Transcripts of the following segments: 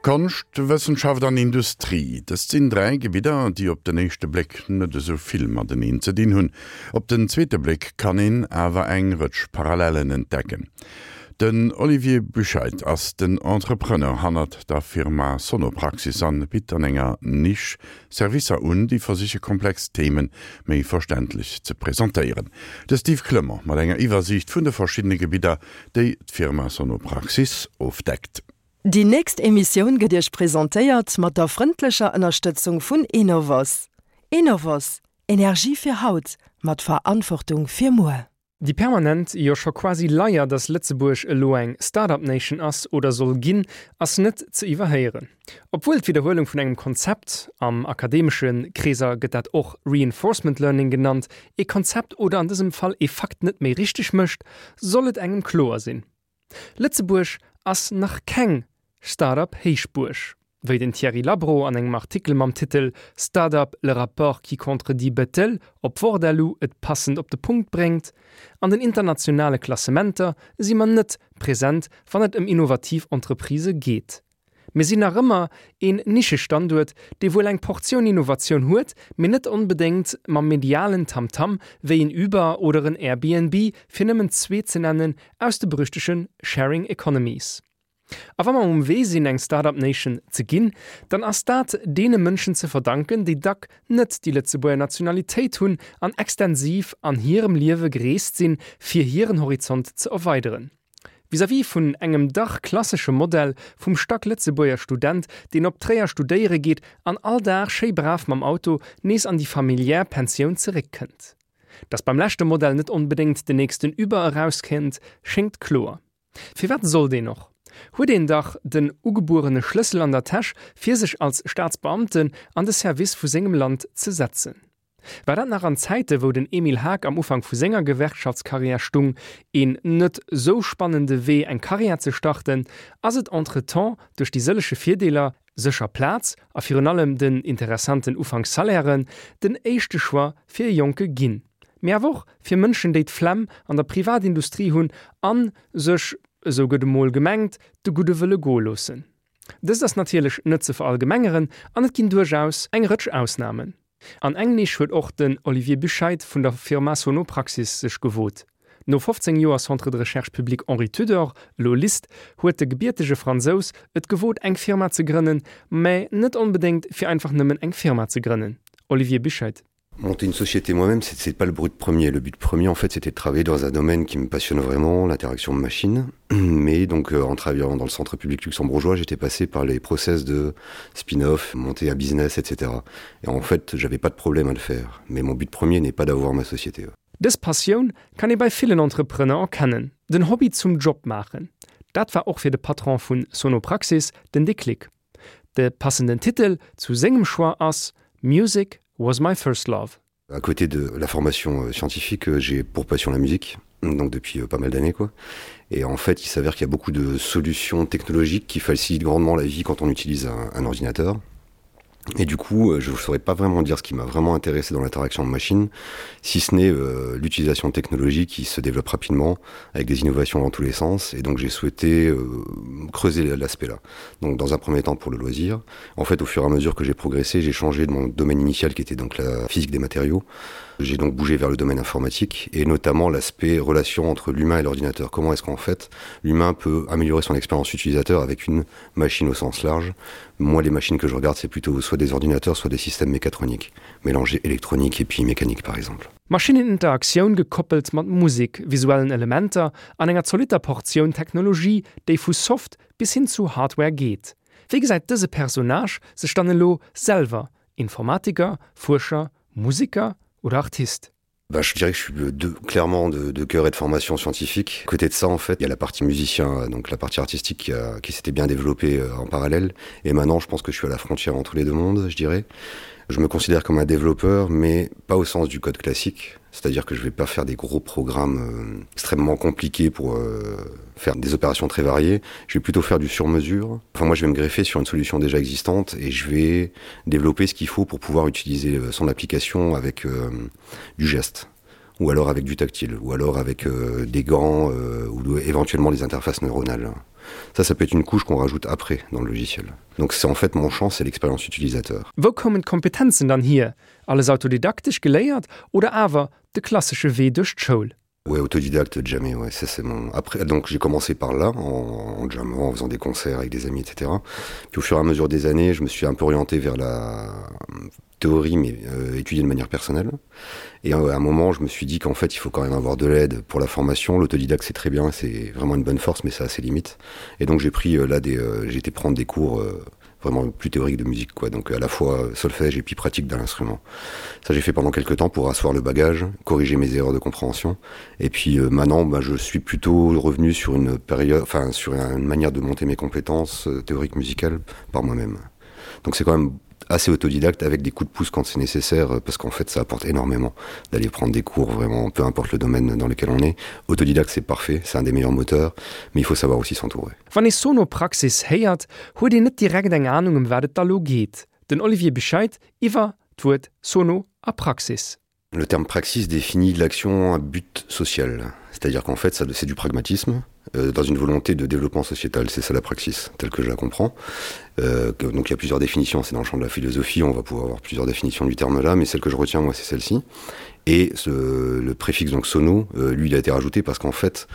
Konscht, Wëssenschaft an Industrie, dëst sinn 3 Gebidder, déi op den éischte Bléck net esou vill mateneen ze dinn hunn. Op den zweete Bléck kann een awer eng Rëtsch Parallellen entdecken. Den Olivier Buchheit ass den Entrepreneur hannert der Firma Sonopraxis an bitt an enger Nisch Servicer un, déi versiche komplex Themen méi verständlech ze presentéieren. De Steve Clement mat enger Iwwersiicht vun de verschiddene Gebidder, déi d'Firma Sonopraxis ofdeckt. Déi nächst Emissioun gëtt Iech presentéiert mat der frëndlecher Ënnerstëtzung vun Enovos. Enovos, Energie fir haut, mat Verantwortung fir muer. Déi permanent, jo scho quasi Leier, dass Lëtzebuerg elo eng Start-up Nation ass oder soll ginn, ass net ze iwwerhéieren. Obwuel d'Widderhuelung vun engem Konzept, am akademesche Kreeser gëtt dat och Reinforcement Learning genannt, ee Konzept oder an dësem Fall ee Fakt net méi richteg mécht, soll et engem kloer sinn, Lëtzebuerg ass nach keng Start-up Héichbuerg. Wéi den Thierry Labro an engem Artikel mam Titel Start-up, le rapport qui contredit Bettel op Wort.lu et passend op de Punkt bréngt, An den internationale Klassementer si mer net present, wann et ëm innovativ Entreprisë geet. Mir sinn nach ëmmer een Nischestanduert, dee wuel eng Portioun Innovatioun huet, mee net onbedéngt mam medialen Tamtam wéi en Uber oder en Airbnb, fir nëmmen zwee ze nennen aus de berüchtege Sharing Economies. A wa mer um Wee sinn eng Start-up Nation ze ginn, dann ass dat deene Mënschen ze verdanken, déi dack net déi Lëtzebuerger Nationalitéit hunn an extensiv an hirem Liewe gereest sinn, fir hiren Horizont ze erweideren. Vis-à-vis vun engem dach klassesche Modell vum Stack-Lëtzebuerger Student, deen op Tréier studéiere geet an all Dag schéi brav mam Auto nees an déi familiär Pensioun zeréckkënnt. Dass beim leschte Modell net onbedéngt den nächsten Uber erauskennt, schéngt kloer. Firwat sollt een och? Huet een dach den ugebuerene Schlëssel an der Täsch, fir sech als Staatsbeamten an de Service vu sengem Land ze setzen. War dat nach an Zäite wou den Emile Haag am Ufank vu senger Gewerkschaftskarriär stung, een net sou spannende Wee eng Karriär ze starten, ass et entretemps duerch déi sëlleche Virdeeler, sécher Plaz a virun allem den interessanten Ufankssalairen, den éischte Choix fir e Jonke ginn. Mee awer och fir Mënschen déi d'Flemm an der Privatindustrie hunn an sech, esou gëtt emol gemengt, de Gudde wëlle goe loossen. Dëst ass natierlech net ze verallgemengeren an et ginn duerchaus eng Rëtsch Ausnamen. An eng Nisch huet och den Olivier Buchheit vun der Firma Sonopraxis sech gewot. No 15 Joer Centre de Recherche Public Henri Tudor, elo LIST, huet de gebiertege Fransous et gewot eng Firma ze grënnen, mä net onbedéngt fir einfach nëmmen eng Firma ze grënnen. Olivier Buchheit. Monter une société moi-même, c'est pas le brut premier. Le but premier, en fait, c'était de travailler dans un domaine qui me passionne vraiment, l'interaction machine. Mais donc euh, en travaillant dans le centre public luxembourgeois, j'étais passé par les process de spin-off, monter à business, etc. Et en fait, j'avais pas de problème à le faire. Mais mon but premier n'est pas d'avoir ma société. Dës Passioun kann ee bei villen Entrepreneur erkennen, den Hobby zum Job maachen. Dat war och fir de Patron vun Sonopraxis den Déclic. De passenden Titel zu sengem Choix ass Music was my first love. À côté de la formation euh, scientifique, euh, j'ai pour passion la musique donc depuis euh, pas mal d'années quoi. Et en fait, il s'avère qu'il y a beaucoup de solutions technologiques qui facilitent grandement la vie quand on utilise un, un ordinateur. Et du coup, euh, je ne saurais pas vraiment dire ce qui m'a vraiment intéressé dans l'interaction de machine, si ce n'est euh, l'utilisation de technologies qui se développe rapidement avec des innovations dans tous les sens. Et donc j'ai souhaité euh, creuser l'aspect là. Donc dans un premier temps pour le loisir. En fait, au fur et à mesure que j'ai progressé, j'ai changé de mon domaine initial qui était donc la physique des matériaux. J'ai donc bougé vers le domaine informatique et notamment l'aspect relation entre l'humain et l'ordinateur. Comment est-ce qu'en fait l'humain peut améliorer son expérience utilisateur avec une machine au sens large. Moi, les machines que je regarde, c'est plutôt soit des ordinateurs, soit des systèmes mécatroniques, mélangés électronique et puis mécanique par exemple. Maschinneninteraktioun gekoppelt mat Musek, visuellen Elementer an enger zolitter Portioun Technologie, déi vu Soft bis hin zu Hardware geet. Wéi gesäit dëse Personnage sech dann elo selwer, Informatiker, Fuerscher, Museker oder Artist? Bah, je dirais que je suis de, clairement de, de cœur et de formation scientifique. Côté de ça en fait, il y a la partie musicien, donc la partie artistique qui, a, qui s'était bien développée euh, en parallèle. Et maintenant, je pense que je suis à la frontière entre les deux mondes, je dirais. Je me considère comme un développeur, mais pas au sens du code classique. C'est-à-dire que je vais pas faire des gros programmes euh, extrêmement compliqués pour euh, faire des opérations très variées. Je vais plutôt faire du sur-mesure. Enfin moi je vais me greffer sur une solution déjà existante et je vais développer ce qu'il faut pour pouvoir utiliser euh, son application avec euh, du geste ou alors avec du tactile ou alors avec euh, des gants euh, ou éventuellement des interfaces neuronales. Ça ça peut être une couche qu'on rajoute après dans le logiciel. Donc c'est en fait mon champ, c'est l'expérience utilisateur. Wou koumen d'Kompetenzen dann hier? Alles autodidaktesch geléiert oder awer de klassesche Wee duerch d'Schoul? Ouais, autodidacte jamais ouais, ça c'est mon après donc j'ai commencé par là en, en jammant, en faisant des concerts avec des amis etc. Puis au fur et à mesure des années, je me suis un peu orienté vers la théorie mais euh, étudier de manière personnelle. Et euh, à un moment, je me suis dit qu'en fait, il faut quand même avoir de l'aide pour la formation. L'autodidacte c'est très bien, c'est vraiment une bonne force mais ça a ses limites. Et donc j'ai pris euh, là des euh, j'ai été prendre des cours euh, vraiment plus théorique de musique quoi donc à la fois euh, solfège et puis pratique d'un instrument ça j'ai fait pendant quelque temps pour asseoir le bagage corriger mes erreurs de compréhension et puis euh, maintenant bah, je suis plutôt revenu sur une période enfin sur une manière de monter mes compétences euh, théoriques musicales par moi-même donc c'est quand même assez autodidacte avec des coups de pouce quand c'est nécessaire euh, parce qu'en fait ça apporte énormément d'aller prendre des cours vraiment peu importe le domaine dans lequel on est autodidacte c'est parfait c'est un des meilleurs moteurs mais il faut savoir aussi s'entourer Wann ee Sonopraxis héiert, huet een net direkt eng Anung ëm wat et da lo geet. Den Olivier Bescheid iwwer d'Wuert Sono a Praxis. Le terme praxis définit l'action à but social, c'est-à-dire qu'en fait ça c'est du pragmatisme euh, dans une volonté de développement sociétal, c'est ça la praxis telle que je la comprends. Euh, que, donc il y a plusieurs définitions, c'est dans le champ de la philosophie, on va pouvoir avoir plusieurs définitions du terme là, mais celle que je retiens moi c'est celle-ci. Et ce, le préfixe donc sono, euh, lui il a été rajouté parce qu'en fait,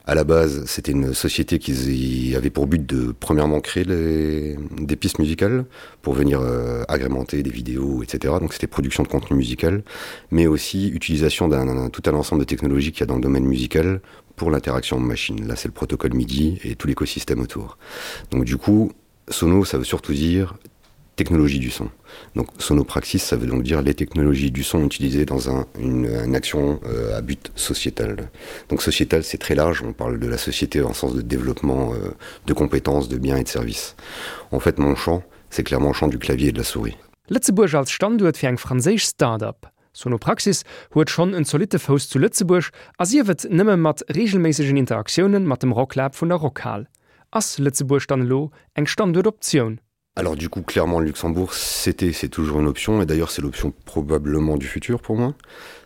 à la base c'était une société qui avait pour but de premièrement créer les, des pistes musicales pour venir euh, agrémenter des vidéos etc donc c'était production de contenu musical mais aussi utilisation d'un tout un ensemble de technologies qu'il y a dans le domaine musical pour l'interaction machine là c'est le protocole midi et tout l'écosystème autour donc du coup sono ça veut surtout dire technologie du son. Donc sonopraxis, ça veut donc dire les technologies du son utilisées dans un, une, une action euh, à but sociétal. Donc sociétal, c'est très large, on parle de la société en sens de développement euh, de compétences, de biens et de services. En fait, mon champ, c'est clairement le champ du clavier et de la souris. Lëtzebuerg als Standuert fir eng franséisch Start-up. Sonopraxis huet schonn en zolitte Fouss zu Lëtzebuerg, a sief et nëmme mat reegelméissegen Interaktiounen mat dem Rocklab vun der Rockhal. Ass Lëtzebuerg dann elo eng Standuertoptioun? Alors du coup clairement le Luxembourg c'était c'est toujours une option et d'ailleurs c'est l'option probablement du futur pour moi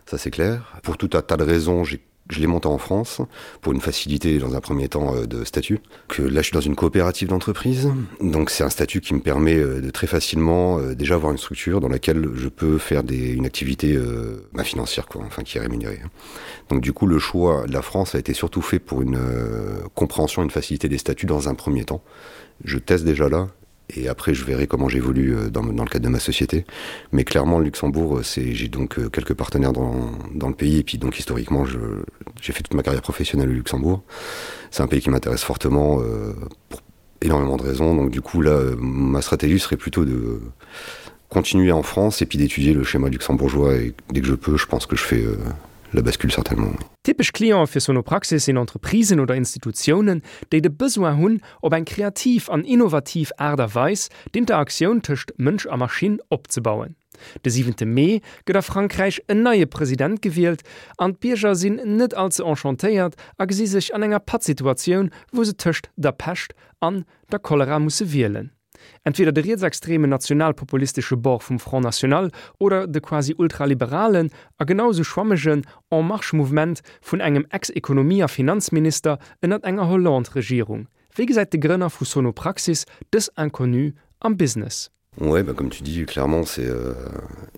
ça c'est clair pour tout un tas de raisons j'ai je l'ai monté en France pour une facilité dans un premier temps euh, de statut que là je suis dans une coopérative d'entreprise donc c'est un statut qui me permet euh, de très facilement euh, déjà avoir une structure dans laquelle je peux faire des une activité euh, bah, financière quoi enfin qui est rémunérée donc du coup le choix de la France a été surtout fait pour une euh, compréhension une facilité des statuts dans un premier temps je teste déjà là et après je verrai comment j'évolue euh, dans, dans le cadre de ma société mais clairement le luxembourg euh, c'est j'ai donc euh, quelques partenaires dans, dans le pays et puis donc historiquement j'ai fait toute ma carrière professionnelle au luxembourg c'est un pays qui m'intéresse fortement euh, pour énormément de raisons donc du coup là ma stratégie serait plutôt de continuer en france et puis d'étudier le schéma luxembourgeois et dès que je peux je pense que je fais euh, la bascule certainement. Typesch Clientë fir Sonopraxis sinn Entreprisen oder Institutiounen, déi de Besoin hunn, op eng kreativ an innovativ Aart a Weis d'Interaktioun tëscht Mënsch a Maschinn opzebauen. De siwente Mee gëtt a Frankräich en neie President gewielt an d'Bierger sinn net all ze enchantéiert a gesi sech an enger Pattsituatioun, wou se tëscht der Pescht an der Cholera musse wielen. Entweder de rietsextremen nationalpopulistesche Bord vum Front National oder de quasi ultraliberalen a genau sou schwammegen En Marche-Mouvement vun engem Ex-Ekonomie a Finanzminister ënnert enger Hollande-Regierung. Wéi gesäit de Grënner vu Sonopraxis dës Inconnue am Business? Ouais, bah comme tu dis, clairement c'est euh,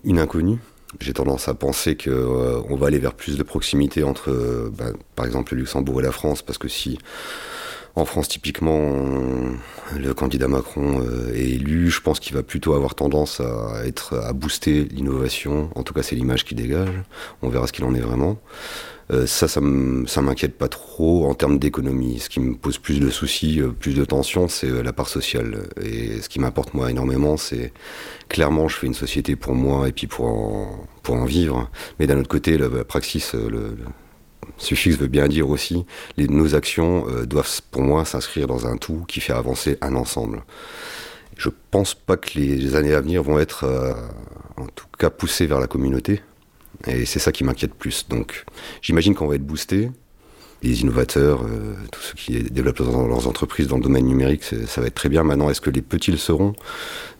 une inconnue. J'ai tendance à penser que euh, on va aller vers plus de proximité entre euh, bah, par exemple le Luxembourg et la France parce que si en France typiquement on, le candidat Macron euh, est élu, je pense qu'il va plutôt avoir tendance à être à booster l'innovation, en tout cas c'est l'image qui dégage, on verra ce qu'il en est vraiment. Euh, ça ça m'inquiète pas trop en termes d'économie. Ce qui me pose plus de soucis, euh, plus de tensions, c'est euh, la part sociale. Et ce qui m'importe moi énormément, c'est clairement je fais une société pour moi et puis pour en, pour en vivre. Mais d'un autre côté, la, la praxis, le, le suffixe veut bien dire aussi, les, nos actions euh, doivent pour moi s'inscrire dans un tout qui fait avancer un ensemble. Je pense pas que les années à venir vont être euh, en tout cas poussées vers la communauté et c'est ça qui m'inquiète plus. Donc j'imagine qu'on va être boosté les innovateurs, euh, tous ceux qui développent leurs entreprises dans le domaine numérique, ça va être très bien maintenant. Est-ce que les petits le seront?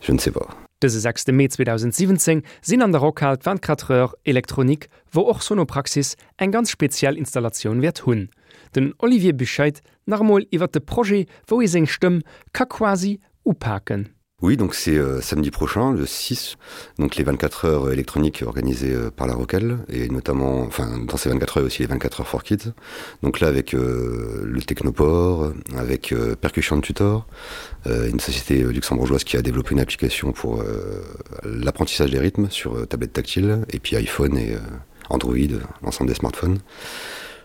Je ne sais pas. Dëse 6 Mee 2017 sinn an der Rockhal d'24 Heures électroniques, wou och Sonopraxis eng ganz speziell Installatioun wäert hunn. Den Olivier Buchheit nach emol iwwer de Projet, wou ee seng Stëmm ka quasi upaken. Oui, donc c'est euh, samedi prochain, le 6, donc les 24 heures électroniques organisées euh, par la Roquelle, et notamment, enfin, dans ces 24 heures aussi les 24 heures for Kids. Donc là, avec euh, le Technoport, avec euh, Percussion Tutor, euh, une société euh, luxembourgeoise qui a développé une application pour euh, l'apprentissage des rythmes sur euh, tablette tactile, et puis iPhone et euh, Android, l'ensemble des smartphones.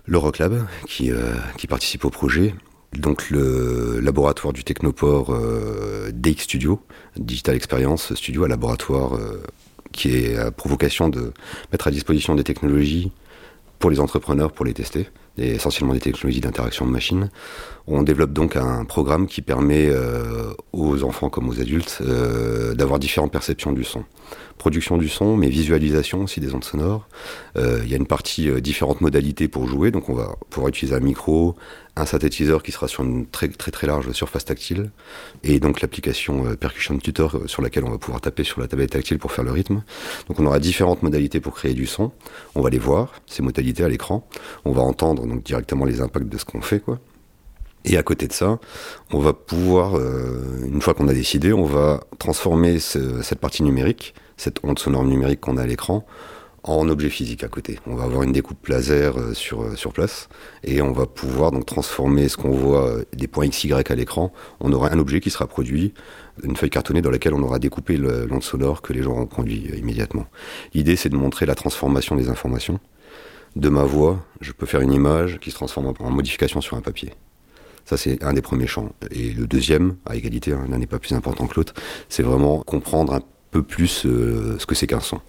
Le Rocklab qui, euh, qui participe au projet, donc le laboratoire du Technoport euh, DX Studio, Digital Experience Studio, un laboratoire euh, qui est à provocation de mettre à disposition des technologies pour les entrepreneurs pour les tester et essentiellement des technologies d'interaction de machines. On développe donc un programme qui permet euh, aux enfants comme aux adultes euh, d'avoir différentes perceptions du son. Production du son, mais visualisation aussi des ondes sonores. Euh, il y a une partie euh, différentes modalités pour jouer, donc on va pouvoir utiliser un micro, un synthétiseur qui sera sur une très très très large surface tactile et donc l'application euh, Percussion Tutor euh, sur laquelle on va pouvoir taper sur la tablette tactile pour faire le rythme. Donc on aura différentes modalités pour créer du son. On va les voir, ces modalités à l'écran. On va entendre donc directement les impacts de ce qu'on fait quoi. Et à côté de ça, on va pouvoir, euh, une fois qu'on a décidé, on va transformer ce, cette partie numérique, cette onde sonore numérique qu'on a à l'écran, en objet physique à côté. On va avoir une découpe laser euh, sur, euh, sur place et on va pouvoir donc transformer ce qu'on voit euh, des points XY à l'écran. On aura un objet qui sera produit, une feuille cartonnée dans laquelle on aura découpé l'onde sonore que les gens ont conduit immédiatement. L'idée c'est de montrer la transformation des informations. De ma voix, je peux faire une image qui se transforme en modification sur un papier. Ça c'est un des premiers champs. Et le deuxième, à égalité, l'un n'est pas plus important que l'autre, c'est vraiment comprendre un peu plus euh, ce que c'est qu'un son.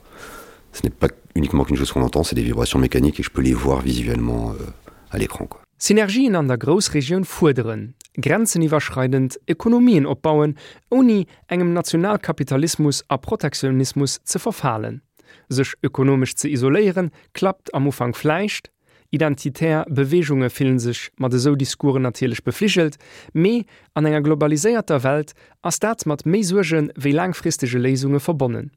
Ce n'est pas uniquement qu'une chose qu'on entend, c'est des vibrations mécaniques et je peux les voir visuellement euh, à l'écran. Synergien an der Groussregioun fuerderen, grenzeniwwerschreidend Ekonomien opbauen, ouni engem Nationalkapitalismus a Protektionismus ze verfalen. Sech ökonomesch ze isoléieren, klappt am Ufank vläicht, identitär Beweegunge fillen sech mat esou Discoursen natierlech befligelt, mee an enger globaliséierter Welt ass dat mat méi Suerge wéi laangfristege Léisunge verbonnen.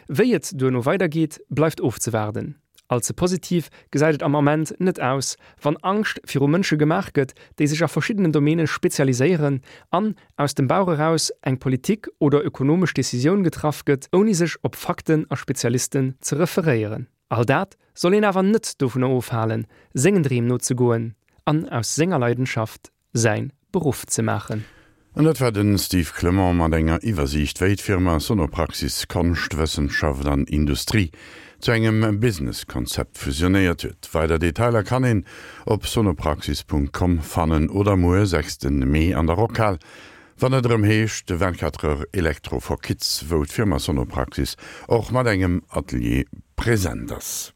Wéi et duerno weidergeet, bleift ofzewaarden. All ze positiv gesäit et am Ament net aus, wann Angscht viru Mënsche gemaach gëtt, déi sech a verschiddenen Domäne spezialiséieren an aus dem Bauch eraus eng Politik oder ökonomesch Decisioun getraff gëtt, ouni sech op Fakten a Spezialisten ze referéieren. All dat soll een awer net dovunner ofhalen, sengen Dreem nozegoen an aus senger Leidenschaft säin Beruff ze maachen. An dat war den Steve Clement mat enger Iwwersiicht, wéi d'Firma Sonopraxis Konscht, Wëssenschaft an Industrie zu engem Business-Konzept fusionéiert huet. Weider Detailer kann een op sonopraxis.com fannen oder muer, 6 Mee, an der Rockhal, wann et erëm heescht 24 Heures Electro for Kids, wou d'Firma Sonopraxis och mat engem Atelier present ass.